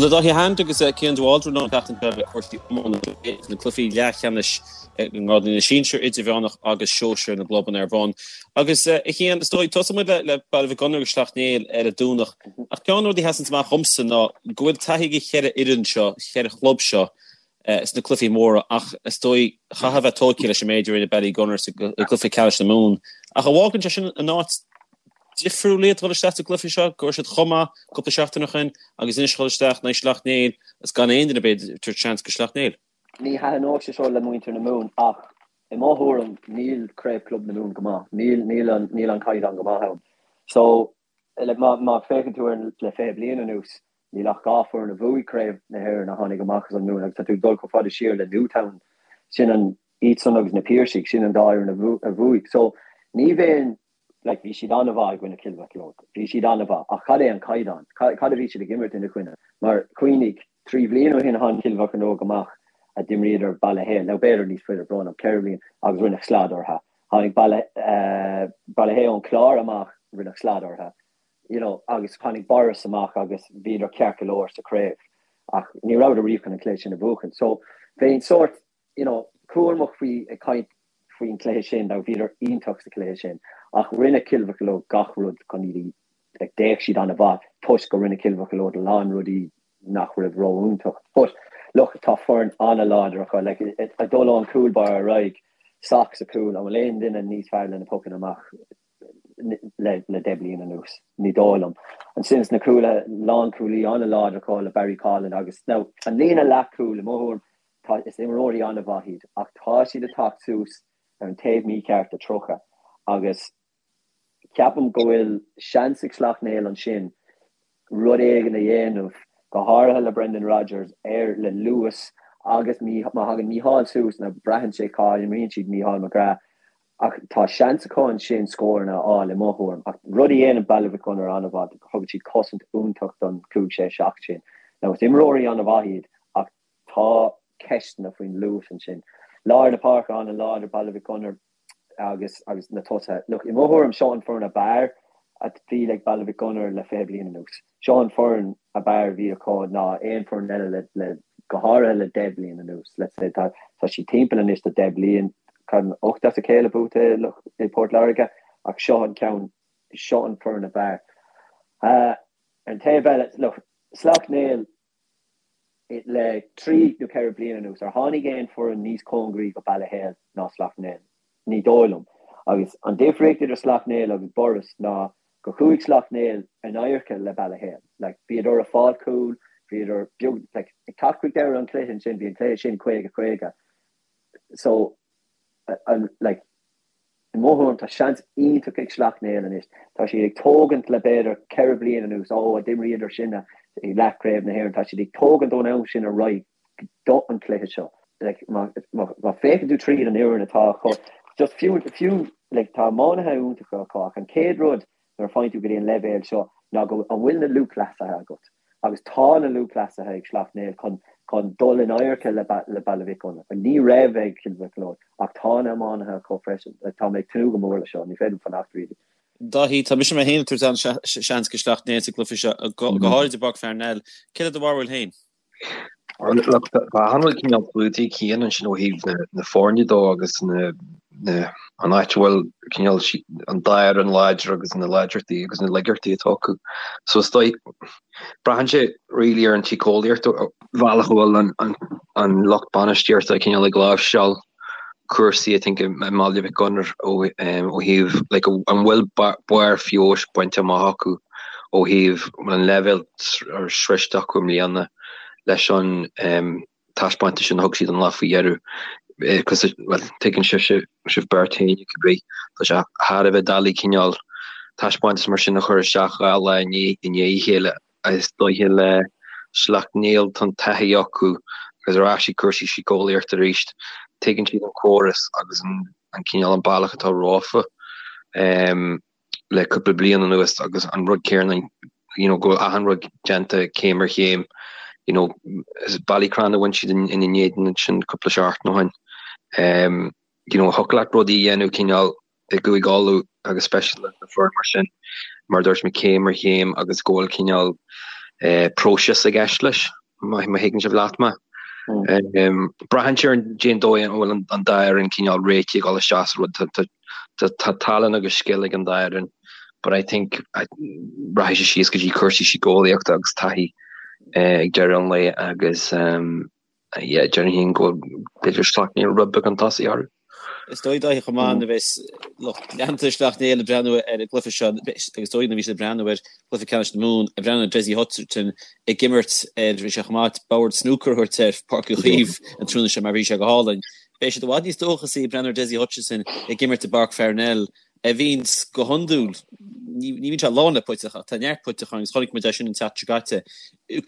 Bhuel, tá Dáithí Hand agus Cian de Bhaldraithe linn an tseachtain seo le cúrsaí iomána na cluichí leathcheannais i ngrád na sinsear, idirmheánach agus sóisir na gclubanna ar bun. Agus a Chian, is dóigh, tosóidh muid le Baile Mhic Gonair agus Sleacht Néill ar an Domhnach. Ach ceann de na rudaí a sheasann amach dhomsa ná go bhfuil taithí ag an cheithre fhoireann seo, cheithre chlub seo, sna cluichí móra ach is dóigh chaithfeá a bheith tógtha leis an méid a rinne Ballygunner sa gcluiche ceannais na Mumhan. Ach an bhfágann sé sin in áit difriúil iad dhul isteach sa gcluiche seo, go raibh siad chomh maith cúpla seachtain ó shin agus anois dhul isteach in aghaidh Shleacht Néill agus gan aon duine b'fhéidir ag tabhairt seans go Sleacht Néill. Ní thaitneodh sé seo le muintir na Mumhan ach i mo thuairim níl Craobh Club na Mumhan go maith. Níl níl an níl an caighdeán go maith ann. So like má má féachann tú ar le 20 bliain anuas níl ach 2 foireann a bhuaigh Craobh na hÉireann a tháinig amach as an Mumhain agus tá tú ag dul chomh fada siar le Newtown sin an iadsan agus na Piarsaigh sin an dá fhoireann a bhuaigh. So ní bheinn Like, bhí siad an-mhaith i gcoinne Chill Mocheallóg. Bhí siad an-mhaith. Ach cad é an caighdeán? Cad a bhí siad ag imirt ina choinne? Mar, cuimhnigh, 3 bhliain ó shin tháinig Cill Mocheallóg amach a d'imríodar Baile Héil, nó b'fhéidir níos faide, brón orm, 4 bhliain, agus rinneadh slad orthu. Tháinig Baile, Baile Héil ón Chlár amach, rinneadh slad orthu. You know, agus tháinig Borris amach agus bhíodar ceart go leor sa chraobh. Ach ní rabhadar riamh chun an cluiche sin a bhuachan. So, bheinn sórt, you know, cúramach faoi ag caint faoin chluiche sin, now bhíodar iontach sa chluiche sin, ach rinne Cill Mocheallóg gach rud chun iad a, like, d'fhéach siad an-mhaith toisc go rinne Cill Mocheallóg a lán rudaí nach raibh ró-iontach. But, look, tá foireann an-láidir acu, like, ag dul ón cúl báire ar aghaidh, Sock sa chúl, an bhfuil aon duine níos fearr le na pocanna amach le le 10 bliain anuas? Ní dóigh liom. Ansin sna cúlaithe, lánchúlaí an-láidir acu le Barry Coughlan agus, now, an líne leathchúil, i mo thuairim, Tá, is imreoirí an-mhaith iad ach tá siad ag teacht suas ar an taobh mícheart de 30 agus ceapaim go bhfuil seans ag Sleacht Néill ansin rud éigin a dhéanamh, go háirithe le Brendan Rodgers ar le luas agus má thagann Mícheál suas, now braitheann sé cá imríonn siad Mícheál McGrath ach tá seans acu ansin scóranna a fháil i mo thuairim. Ach rud a dhéanann Baile Mhic Gonair an-mhaith, thugann siad cosaint iontach don 5, 6, 7 sin. Now is imreoirí an-mhaith iad ach Tá ceisteanna faoin luas ansin. Lár na páirce an-láidir, Baile Mhic Gonair agus agus na tosaithe. Look, i mo thuairim, seo an foireann ab fhearr a bhí ag Baile Mhic Gonair le 20 bliain anuas. Seo an foireann ab fhearr a bhí acu ná aon foireann eile le le go háirithe le 10 bliain anuas. Let's say tá tá siad timpeall anois do 10 bliain, 8 as a chéile buaite i Port Láirge ach seo an ceann, seo an foireann ab fhearr. Ar an taobh eile, look, Sleacht Néill, le 3 nó 4 bliana anuas, ar tháinig aon foireann níos cóngaraí go Baile Héil ná Sleacht Néill? Ní dóigh liom. Agus an difríocht idir Sleacht Néill agus Borris ná go chuaigh Sleacht Néill in adharca le Baile Héil. Like, bhíodar ag fáil cúl, bhíodar beag, like, ag teacht chuig deireadh an chluiche ansin, bhí an cluiche sin 50, 50. So, an, like, I mo thuairim, tá seans iontach ag Sleacht Néill anois. Tá siad ag tógaint le b'fhéidir 4 bliana anuas, ó a d'imríodar sinne i leathchraobh na hÉireann, tá siad ag tógaint ón am sin ar aghaidh do an cluiche seo. Like, má, má, má féachann tú tríd an fhoireann atá acu, just fiú, fiú, like, tá iománaithe iontacha acu ach an chéad rud nuair a faigheann tú go dtí an leibhéal seo ná go an bhfuil na lúthchleasaithe agat. Agus tá na lúthchleasaithe ag Sleacht Néill chun chun dul in adharca le le Baile Mhic Gonair. Ní raibh ag Cill Mocheallóg ach tá na iománaithe acu freisin. Tá mé ag tnúth go mór le seo, ní féidir liom fanacht really. Dáithí, tá mise mé féin ag tabhairt an-seans go Sleacht Néill sa gcluiche seo, go háirid i bPáirc Pharnell. Céard é do bharúil féin? Tá an-chuid cineál luaite ag Cian ansin ó thaobh na foirne dó agus an áit a bhfuil cineál an dá fhoireann láidir agus na láidreachtaí agus na laigeachtaí atá acu. So is dóigh, braitheann sé really ar an tsíceolaíocht, bhealach a bhfuil an lucht bainistíochta cineál ag láimhseáil cúrsaí I think i mBaile Mhic Gonair ó thaobh like an bhfuil barr feabhais bainte amach acu ó thaobh an leibhéal sroiste acu i mbliana leis an taispeántas sin a thug siad an lá faoi dheireadh because well tuigeann sibh sibh beirt féin cibé tá sé thar a bheith doiligh cineál taispeántas mar sin a chur isteach 2 lá i ndiaidh a chéile. Is dóiche le Sleacht Néill tá an taithí acu agus ar ais ag cúrsaí síceolaíochta arís. Tuigeann siad an córas agus an cineál an bealach atá rompu le cúpla bliain anuas agus an rud céanna you know go bhfuil achan rud déanta céim ar chéim you know is Ballycran a bhain siad ina n-éadan ansin cúpla seachtain ó shin. You know thiocfadh leat rudaí a dhéanamh cineál i gCúige Uladh agus speisialta le foireann mar sin, mar a dúirt mé, céim ar chéim agus go bhfuil cineál. próiseas i gceist leis, má thuigeann sibh leat mé. Braitheann sé ar cén dóigh a bhfuil an dá fhoireann cineál réitithe ag dul isteach sa rud. Tá tallann agus scil ag an dá fhoireann but I think rachaidh sé síos go dtí cúrsaí síceolaíochta agus taithí ag deireadh an lae agus yeah, déarfainn féin go b'fhéidir Sleacht Néill rud beag chun tosaigh orthu. Is dóigh Dáithí chomh maith nuair a bheas lucht leanta Shleacht Néill ag breathnú ar an gcluiche seo, agus is dóigh nuair a bhí siad ag breathnú ar chluiche ceannais na Mumhan, ag breathnú ar Dessie Hutchinson ag imirt ar, bhí sé chomh maith bord snúcair a thabhairt ar Pháirc Uí Chaoimh an tráthnóna seo mar bhí sé go hálainn. Beidh siad i bhfad níos dóchasaí ag breathnú ar Dessie Hutchinson ag imirt i bPáirc Pharnell a bhíonns go hiondúil, ní bhíonn sé lán le puiteach ach tá neart puiteach ann agus chonaic muid é sin an tseachtain seo caite.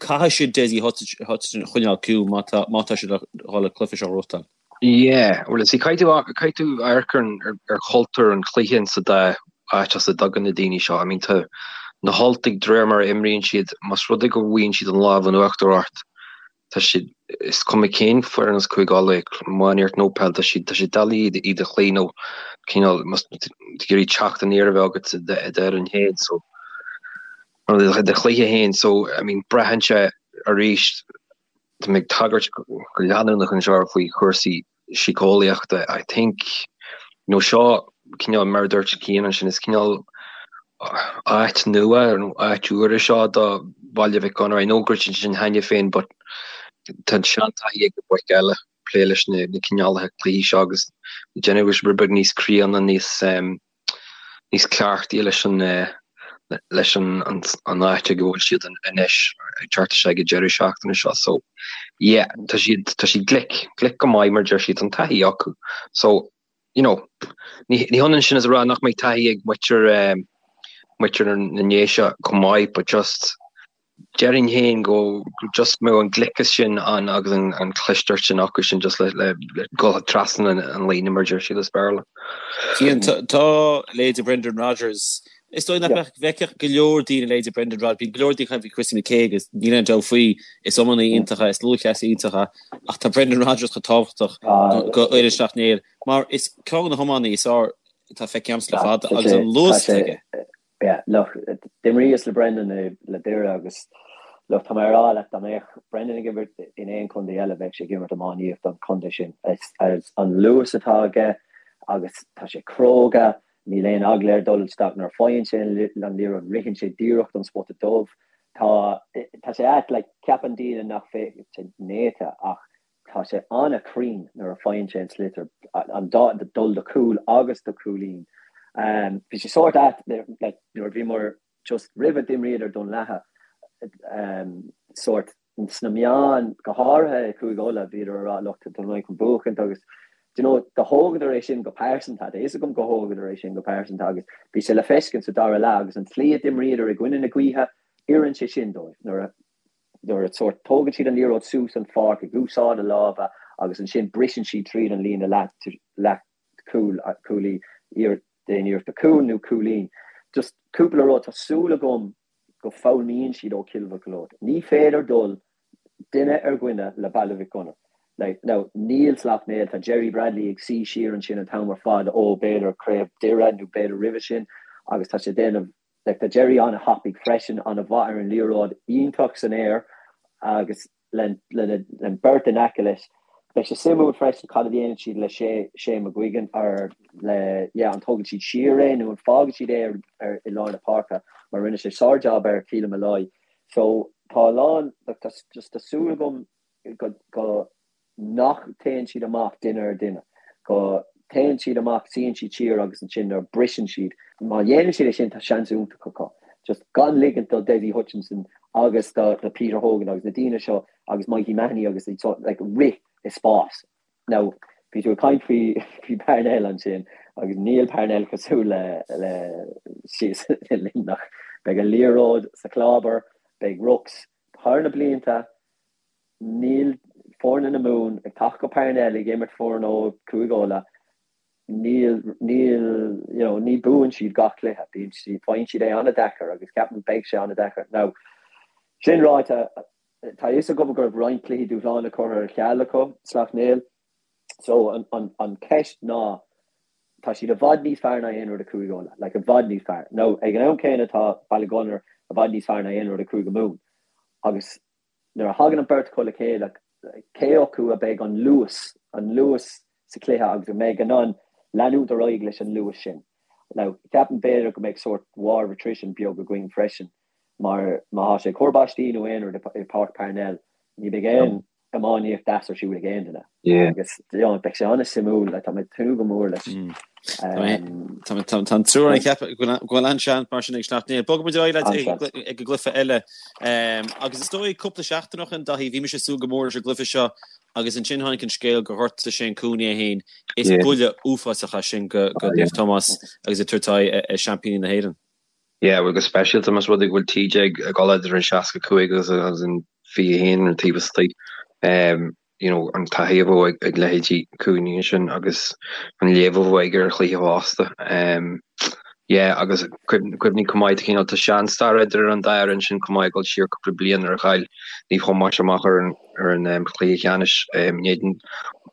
Caithfidh siad Dessie Hutchinson a choinneáil ciúin má tá má tá siad le dhul an cluiche seo a ghnóthachtáil. Yeah, well see caithfidh tú caithfidh tú amharc ar ar chultúr an chluiche in sa dá áit as a dtagann na daoine seo. I mean tá na hUltaigh de réir mar a imríonn siad, más rud é go bhfaigheann siad an lámh in uachtar ort, tá siad, is cuma cén foireann as Cúige Uladh, iománaíocht nó peil, tá siad, tá siad doiligh iad a chloí nó cineál, más tú ag iarraidh teacht aniar a bheith agat i d'fhoireann féin, so, nó i do chluiche féin, so, I mean, braitheann sé arís, tá mé ag tagairt go leanúnach anseo faoi chúrsaí síceolaíochta, I think, you know, seo cineál, mar a dúirt Cian ansin, is cineál áit nua nó áit úr é seo do Bhaile Mhic Gonair. I know go raibh siad ansin cheana féin but tá an seantaithí ag na boic eile plé leis na cineálacha cluichí seo agus déanamh go rud beag níos críonna, níos níos cleachtaí leis an leis an an áit ag a bhfuil siad anois ag teacht isteach ag an deireadh seachtaine seo. So yeah, tá siad tá siad glic, glic go maith mar deir siad, tá an taithí acu. So you know, ní ní hionann sin is a rá nach mbeidh taithí ag muintir muintir na nDéise chomh maith, but just Déarfainn féin go just mbeadh an gliceas sin ann agus an chlisteacht sin acu sin just le le dul trasna an líne mar a deir siad as Béarla. Cian, tá leithéidí Brendan Rodgers, is dóigh nach bhfeicfeadh go leor daoine leithéidí Brendan Rodgers, bíonn go leor daoine ag caint faoi Christy McKaigue agus níl aon dabht faoi, is iománaí iontach é, is lúthchleasaí iontach é, ach tá Brendan Rodgers chomh tábhachtach do fhoireann Shleacht Néill mar is ceann de na hiománaí is fearr atá feicthe agamsa le fada agus an luas atá aige. Yeah, look, d'imríos le Brendan le Doire agus look, tá mé ag rá leat, dá mbeadh Brendan ag imirt in aon chontae eile, bheadh sé ag imirt iománaíocht don chontae sin. Is an luas atá aige agus tá sé cróga, níl aon eagla air dul isteach nuair a faigheann sé an liathróid, ritheann sé díreach don spota dubh. Tá, tá sé ait, like, ceapann daoine nach bhfuil sé néata ach Tá sé an-chruinn nuair a faigheann sé an sliotar, an dá, dul do chúl agus do chúilín. Bhí sé sórt ait like nuair a bhíomar just roimhe d'imríodar Dún Latha sórt sna meáin, go háirithe i Cúige Uladh, bhíodar ag rá look tá Dún Laighean chun buachaint agus do you know do thógadar é sin go pearsanta, tá fhios agam go thógadar é sin go pearsanta agus bhí sé le feiscint sa dara leath agus an tslí a d'imríodar i gcoinne na gaoithe, oireann sé sin dóibh nuair a nuair a sórt tógann siad an liathróid suas an pháirc ag úsáid a lámha agus ansin briseann siad tríd an líne leath leath cúil cúlaí déan iarracht do chúl nó cúilín. Just cúpla rud, tá súil agam go foghlaimíonn siad ó Chill Mocheallóg. Ní féidir dul duine ar dhuine le Baile Mhic Gonair. Like, now, níl Sleacht Néill, tá Gerry Bradley ag suí siar ansin an t-am ar fad ó b'fhéidir craobh Doire nó b'fhéidir roimhe sin agus tá sé déanamh Like tá Gerry an-thapaidh freisin, an-mhaith ar an liathróid, iontach san aer agus le an beirt in aice leis. Beidh sé suimiúil freisin cad a dhéanann siad le Shane McGuigan or le yeah an tógann siad siar é nó an fágann siad é ar i lár na páirce mar rinne sé sár-jab ar Keelan Molloy. So tá a lán like tá just tá súil agam go go nach téann siad amach duine ar dhuine, go téann siad amach, suíonn siad siar agus ansin nuair a briseann siad, má dhéanann siad é sin tá seans iontach acu. Just gan ligint do Dessie Hutchinson agus do do Peter Hogan agus na daoine seo agus Mikey Mahony agus iad seo like rith i spás. Now bhí tú ag caint faoi faoi Parnell ansin agus níl Parnell cosúil le le síos i Luimneach. Beidh an liathróid sa chlábar, beidh rucs thar na blianta, Níl foirne na Mumhan ag teacht go Parnell ag imirt foireann ó Chúige Uladh. Níl, níl, you know, ní buann siad gach cluiche. Bíonn siad, faigheann siad é an-deacair agus ceapaim beidh sé an-deacair. Now, sin ráite, tá a fhios agam go raibh roinnt cluichí dúshláin curtha ar ceal acu, Sleacht Néill. So, an, an, an ceist ná, tá siad i bhfad níos fearr ná aon rud i Cúige Uladh, like i bhfad níos fearr. Now, ag an am céanna tá Baile Gunnair i bhfad níos fearr ná aon rud i Cúige Mumhan. Agus nuair a thagann an beirt acu le chéile, cé acu a beidh an luas, an luas sa chluiche agus a mbeidh in ann leanúint ar aghaidh leis an luas sin. Now, ceapaim b'fhéidir go mbeidh sórt war of attrition beag againn freisin mar má thá sé ag cur báistí nó aon rud i Páirc Parnell, ní bheidh aon iománaíocht deas ar siúl ag aon duine. Agus you know, beidh sé an-suimiúil, like, tá mé ag tnúth go mór leis. Tá an triúr ag ceapadh go bhfuil an-seans mar sin ag Sleacht Néill. Bogfaidh muid ar aghaidh ag an gcluiche eile. Agus is dóigh cúpla seachtain ó shin, Daithí, bhí mise ag súil go mór leis an gcluiche seo agus ansin tháinig an scéal gur ghortaigh Shane Cooney é féin. Is buille uafásach é sin go Naomh Tomás agus ag tabhairt aghaidh ar seaimpíní na hÉireann. Yeah, bhuel go speisialta más rud é go bhfuil TJ ag dul idir an 65 agus an 21 ar an taobh istigh. You know, an taithí a bheadh ag leithéidí Cooney ansin agus an léamh a bheadh aige ar chluiche fosta. Yeah, agus cuimhnigh chomh maith, cineál tá seanstair idir an dá fhoireann sin chomh maith ag dul siar cúpla bliain nuair a chaill Naomh Thomáis amach ar an ar an chluiche ceannais in éadan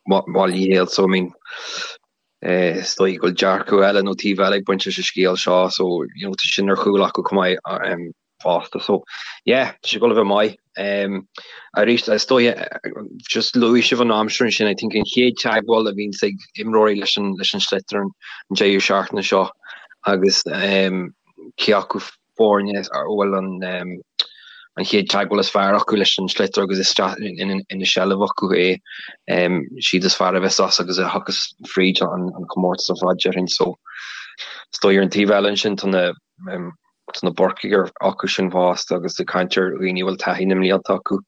Bhaile Uí Héil. So I mean, Is dóigh go bhfuil dearcadh eile nó taobh eile ag baint leis an scéal seo so you know tá sin ar chúl acu chomh maith fosta. So yeah, tá sé ag dul a bheith maith. Arís is dóigh just luaigh sibh an aimsir ansin, I think an chéad teagmháil a bhíonns ag imreoirí leis an leis an sliotar an deireadh seachtaine seo agus cé acu foirne a bhfuil an an chéad teagmháil is fearr acu leis an sliotar agus isteach ina seilbh acu é. Siad is fearr a bheas as agus a thiocfas fríd an comórtas ar fad déarfainn. So is dóigh ar an taobh eile ansin tá na tá na Burcaigh acu sin fosta agus ag caint ar dhaoine a bhfuil taithí na mblianta acu,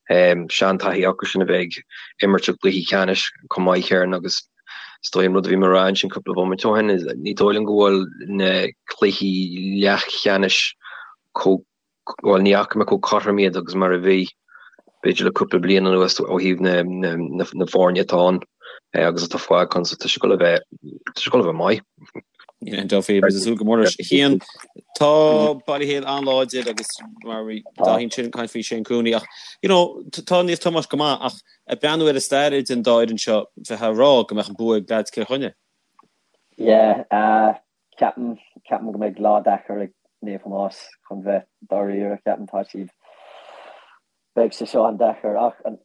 seantaithí acu sin a bheith ag imirt i gcluichí ceannais chomh maith céanna agus Is dóigh an rud a bhí mé a rá ansin cúpla bomaite ó shin, ní dóigh liom go bhfuil na cluichí leathcheannais chomh, bhuel ní fhaca mé chomh cothrom iad agus mar a bhí b'fhéidir le cúpla bliain anuas ó thaobh na na foirne atá ann agus atá fágtha ann so tá sé ag dul a bheith, tá sé ag dul a bheith maith. Yeah, Duffy, beidh súil go mór leis. Cian, tá Baile Héil an-láidir agus mar bhí Dáithí ansin ag caint faoi Shane Cooney ach, you know, tá Naomh Tomás go maith ach Ag breathnú ar an stair idir an dá fhoireann seo, bheifeá ag rá go mbeadh an bua ag leaids Chill Chainnigh. Yeah, ceapaim, ceapaim go mbeidh lá deacair ag Naomh Tomás chun bheith dáiríre, ceapaim tá siad, beidh sé seo an-deacair ach an,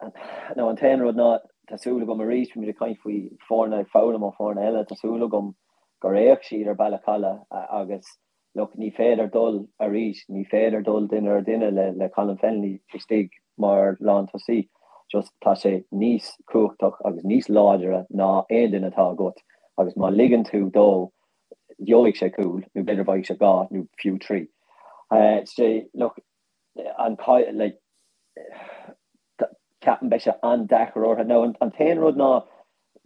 nó an t-aon rud ná tá súil agam arís, bhí muid ag caint faoi foirne ag foghlaim ó foirne eile, tá súil agam gur fhéach siad ar Baile Chalaidh agus Look, ní féidir dul arís, ní féidir dul duine ar duine le le Colin Fennelly istigh mar lántosaí. Just tá sé níos cumhachtach agus níos láidre ná aon duine atá agat agus má ligeann tú dó gheobhaidh sé cúl nó b'fhéidir bhfaighidh sé dhá nó fiú trí. Sé, look, an like, ceapaim beidh sé an-deacair orthu. Now an t-aon rud ná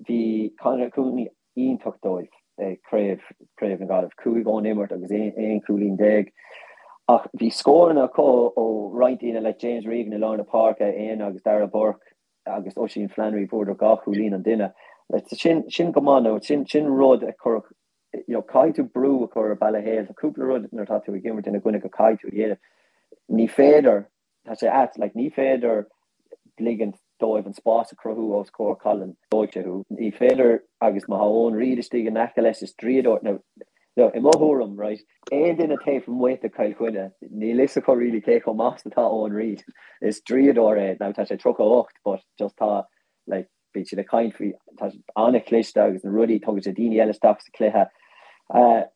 bhí Conor Cooney iontach dóibh ag craobh, Craobh na Gaillimhe, 5 ón imirt agus 11 cúilín. Ach bhí scóranna acu ó roinnt daoine like James Regan i lár na páirce, Éanna agus Darragh Burke agus Oisín Flannery, fuaireadar dhá chúilín an duine. Sin, sin go maith nó sin, sin rud a chuirfeadh, you know, caithfidh tú brú a chur ar Baile Héil. Tá cúpla rud nuair atá tú ag imirt ina gcoinne go caithfidh tú a dhéanamh. Ní féidir Tá sé ait, like, ní féidir ligint dóibh an spás a chruthú os comhair Colin, dóigh sé thú. Ní féidir, agus má tá Eoin Reid istigh in aice leis, is draíodóir, now, now, i mo thuairim, right, aon duine taobh amuigh de Chill Chainnigh, níl fhios acu really cé chomh maith is atá Eoin Reid. Is draíodóir é, now tá sé 38, but just tá, like, bíonn siad ag caint faoi, tá sé an-chliste agus na rudaí, tugann sé daoine eile isteach sa chluiche.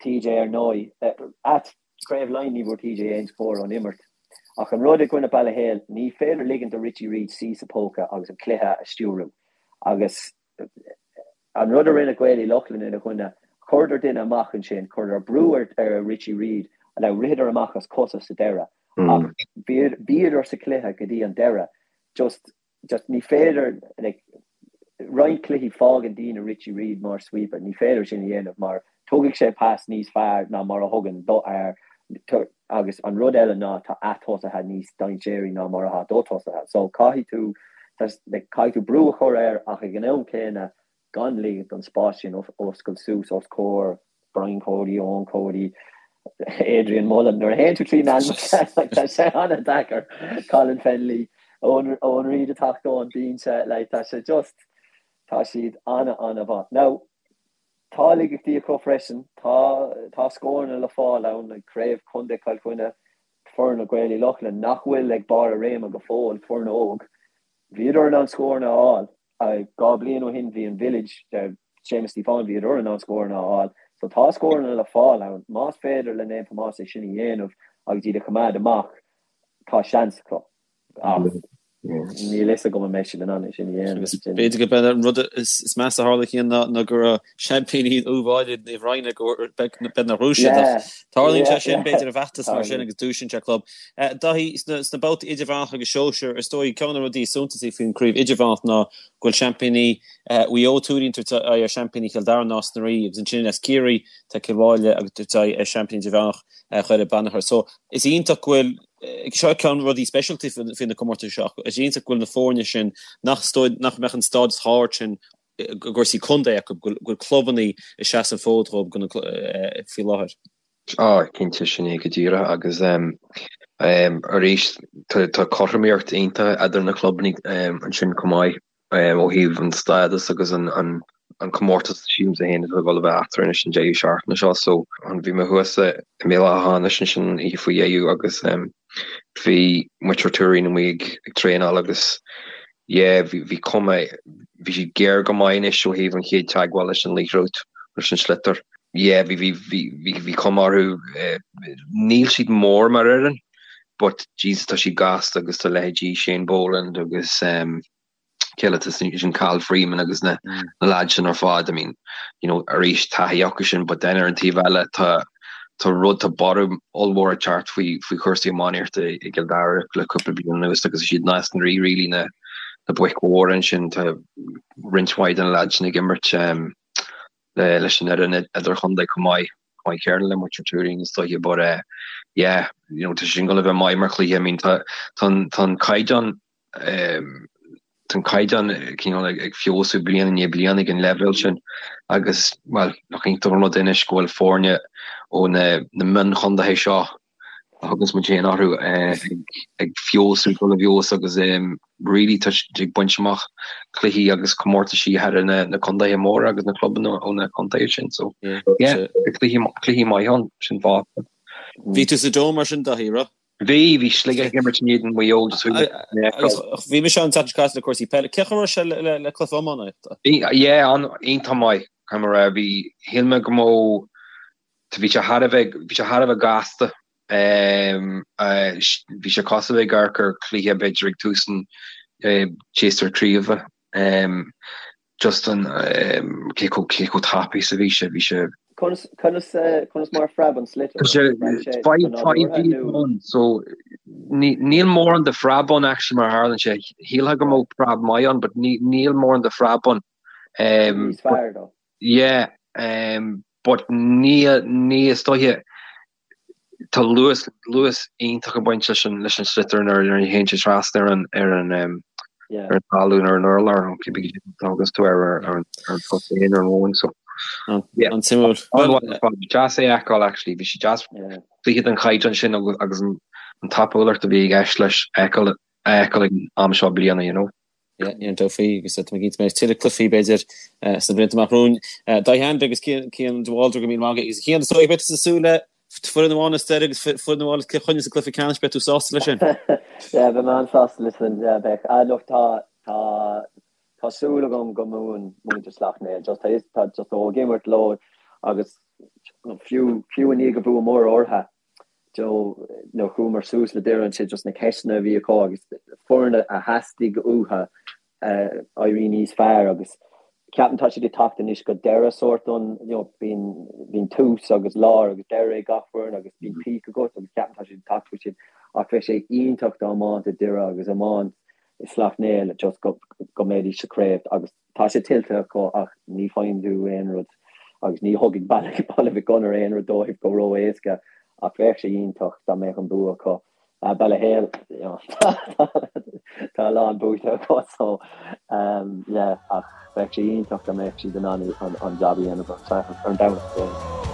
TJ ar ndóigh, ait, Craobh Laighean ní bhfuair TJ aon scór ón imirt. Ach an rud i gcoinne Baile Héil, ní féidir ligint do Richie Reid suí sa póca agus an cluiche a stiúrú. Agus an rud a rinne Gaeil Uí Lochlainn ina choinne, chuireadar duine amach ansin, chuireadar brú ar Richie Reid, now ritheadar amach as cosa sa deireadh, ach bhíodar sa chluiche go dtí an deireadh. Just just ní féidir like roinnt cluichí fágann daoine Richie Reid mar sweeper, ní féidir sin a dhéanamh mar tógfaidh sé pas níos fearr ná mar a thugann do fhear agus an rud eile ná tá a tosaithe níos dainséaraí ná mar atá do tosaithe so caithfidh tú like caithfidh tú brú a chur air ach ag an am céanna gan ligint don spás sin oscailt suas os comhair Brian Cody, Eoin Cody, Adrian Mullen. Nuair a théann tú trí na hainmneacha, like, tá sé an-deacair. Colin Fennelly, Eoin, Eoin Reid ag teacht ón binse, like, tá sé just, tá siad an-an-mhaith. Now, tá laigeachtaí acu freisin, tá, tá scóranna le fáil ann, like, craobh Contae Chill Chainnigh. foireann Ghaeil Uí Lochlainn nach bhfuil ag barr a réime go fóill, foireann óg, bhíodar in ann scóranna a fháil. 2 bliain ó shin bhí an Village, Séamus Stíofáin, bhíodar in ann scóranna a fháil. So tá scóranna le fáil ann. Más féidir le Naomh Tomás é sin a dhéanamh agus iad a choimeád amach, tá seans acu. Ach níl fhios agam an mbeidh siad in ann é sin a dhéanamh. Agus b'fhéidir go b'é an rud is measa a tharla Cian ná go raibh seaimpíní Uíbh Fhailí Naomh Raghnall go b'fhéidir nár bhuaigh siad ach tarlaíonn sé sin b'fhéidir i bhfeachtas mar sin agus dúisíonn sé club. Dáithí, sna babhtaí idirmheánacha agus sóisir, is dóigh ceann de na rudaí is suntasaí faoin chraobh idirmheánach ná go bhfuil seaimpíní Mhaigh Eo Tuairín ag tabhairt aghaidh ar seaimpíní Chill Dara Nás na Rí agus ansin as Ciarraí tá Cill Mháille ag tabhairt aghaidh ar seaimpíní idirmheánach Dhoire Beannchar. So is iontach go bhfuil Seo ceann de rudaí speisialta faoi na comórtais seo. Is iontach go bhfuil na foirne sin nach nach mbeadh an stádas chomh hard sin i gcúrsaí contae acu, go bhfuil clubanna ag seasamh an fód dhóibh faoi láthair. Á, cinnte, sin é go díreach agus arís tá cothromaíocht iontach idir na clubanna ansin chomh maith. Ó thaobh an stádas agus an comórtas sílimse féin atá ag dul a bheith eatarthu anois an deireadh seachtaine seo. So bhí mé thuas i mBéal Átha hAmhnais ansin an oíche faoi dheireadh agus bhí muintir Tuairín amuigh ag traenáil agus yeah bhí bhí cuma bhí siad géar go maith anois ó thaobh an chéad teagmháil leis an liathróid leis an sliotar. Yeah bhí bhí bhí bhí bhí cuma orthu níl siad mór mar fhoireann but Jesus tá siad gasta agus tá leithéidí Shane Boland agus cé eile sin Cathal Freeman agus na na lads sin ar fad I mean you know arís taithí acu sin but then ar an taobh eile tá tá rud tá borradh ollmhór ag teacht faoi faoi chúrsaí iománaíochta i gCill Dara le cúpla bliain anuas agus is iad Nás na Rí really na na boic mhóra ansin tá roinnt mhaith de na lads sin ag imirt um, le leis an fhoireann idirchontae chomh maith chomh maith céanna le muintir Tuairín is dóiche but uh, yeah you know tá sin gonna bheith maith mar chluiche I mean tá tá tá an caighdeán Tá an caighdeán cineál ag feabhsú bliain i ndiaidh bliana ag an leibhéal sin agus, bhuel, nach iontach an rud é anois go bhfuil foirne ó na mionchontaetha seo a thuganns muid féin orthu ag feabhsú, dul i bhfeabhas agus really tá siad ag baint amach cluichí agus comórtaisí thar na contaetha móra agus na clubanna ó na contaetha sin. So, yeah, cluichí maith ann, sin fáth. Bhí tú sa Dome mar sin, Daithí, raibh? Bhí, bhí Sligeach ag imirt in éadan Mhaigh Eo just chuaigh mé Agus bhí mise ann an tseachtain seo caite le cúrsaí peile. Cén chaoi a raibh sé le le cluiche iománaíochta? Bhí, yeah, an, iontach maith, caithfidh mé a rá. Bhí, shíl mé go mbeadh, bhí sé thar a bheith, bhí sé thar a bheith gasta. Bhí sé cosúil le ag amharc ar chluiche b'fhéidir ag tús an tséasúir craoibhe. Just an, cé chomh, cé chomh tapaidh is a bhí sé, bhí sé. Conas, conas, conas mar a phreab an sliotar? Tá sé 5 feet ann, so ní, níl mórán de phreab ann actually mar a tharlaíonn sé. Shílfeá go mbeadh preab maith ann, but ní, níl mórán de phreab ann. Níos fearr though. Yeah, but ní, ní is dóiche, Tá luas, luas iontach ag baint leis an, leis an sliotar nuair a théann sé trasna ar an, ar an, ar an talamh ar an urlár, nó cibé cad a thuganns tú air ar, ar an, ar an chosán ar an mhóin, so. Yeah. An-suimiúil. Deas é a fheiceáil actually, bhí sé deas cluiche den chaighdeán sin agus, agus an, an tapúlacht a bhí i gceist leis a fheiceáil, a fheiceáil ag an am seo bliana, you know. Yeah, níl dabht faoi agus tá mé cinnte go mbeidh tuilleadh cluichí b'fhéidir sna blianta amach romhainn. Dáithí Hanvey agus Cian de Bhaldraithe go raibh míle maith agat agus Cian is dóigh beidh tú ag súil le foireann amháin as Doire agus foireann amháin as Cill Chainnigh sa gcluiche ceannais, beidh tú sásta leis sin? Yeah, beidh mé an-sásta leis sin, yeah, beidh. Ah, look, tá, tá, tá súil agam go mbuann muintir Sleacht Néill, just tá, tá, just ó ag imirt leo agus fiú, fiú i ndiaidh go bhuamar orthu, Joe, nuair a chuamar suas le Doire ansin just na ceisteanna a bhí acu agus foireann a theastaigh uathu éirí níos fearr agus ceapaim tá siad ag teacht anois go deireadh sórt an you know bíonn bíonn tús agus lár agus deireadh ag gach foireann agus bíonn peak agat agus ceapaim tá siad ag teacht faoi sin ach bheadh sé iontach dá mbáinte Doire agus iomáint i Sleacht Néill just go go mbeidís sa chraobh agus Tá sé tuillte acu ach ní faigheann tú aon rud agus ní thugfaidh Baile Mhic Gonair aon rud dóibh go ró-éasca ach bheadh sé iontach dá mbeadh an bua acu. Ballyhale, tá a lán buaite acu so yeah ach bheadh sé iontach dá mbeadh siad in ann an jab a dhéanamh ar an Domhnach.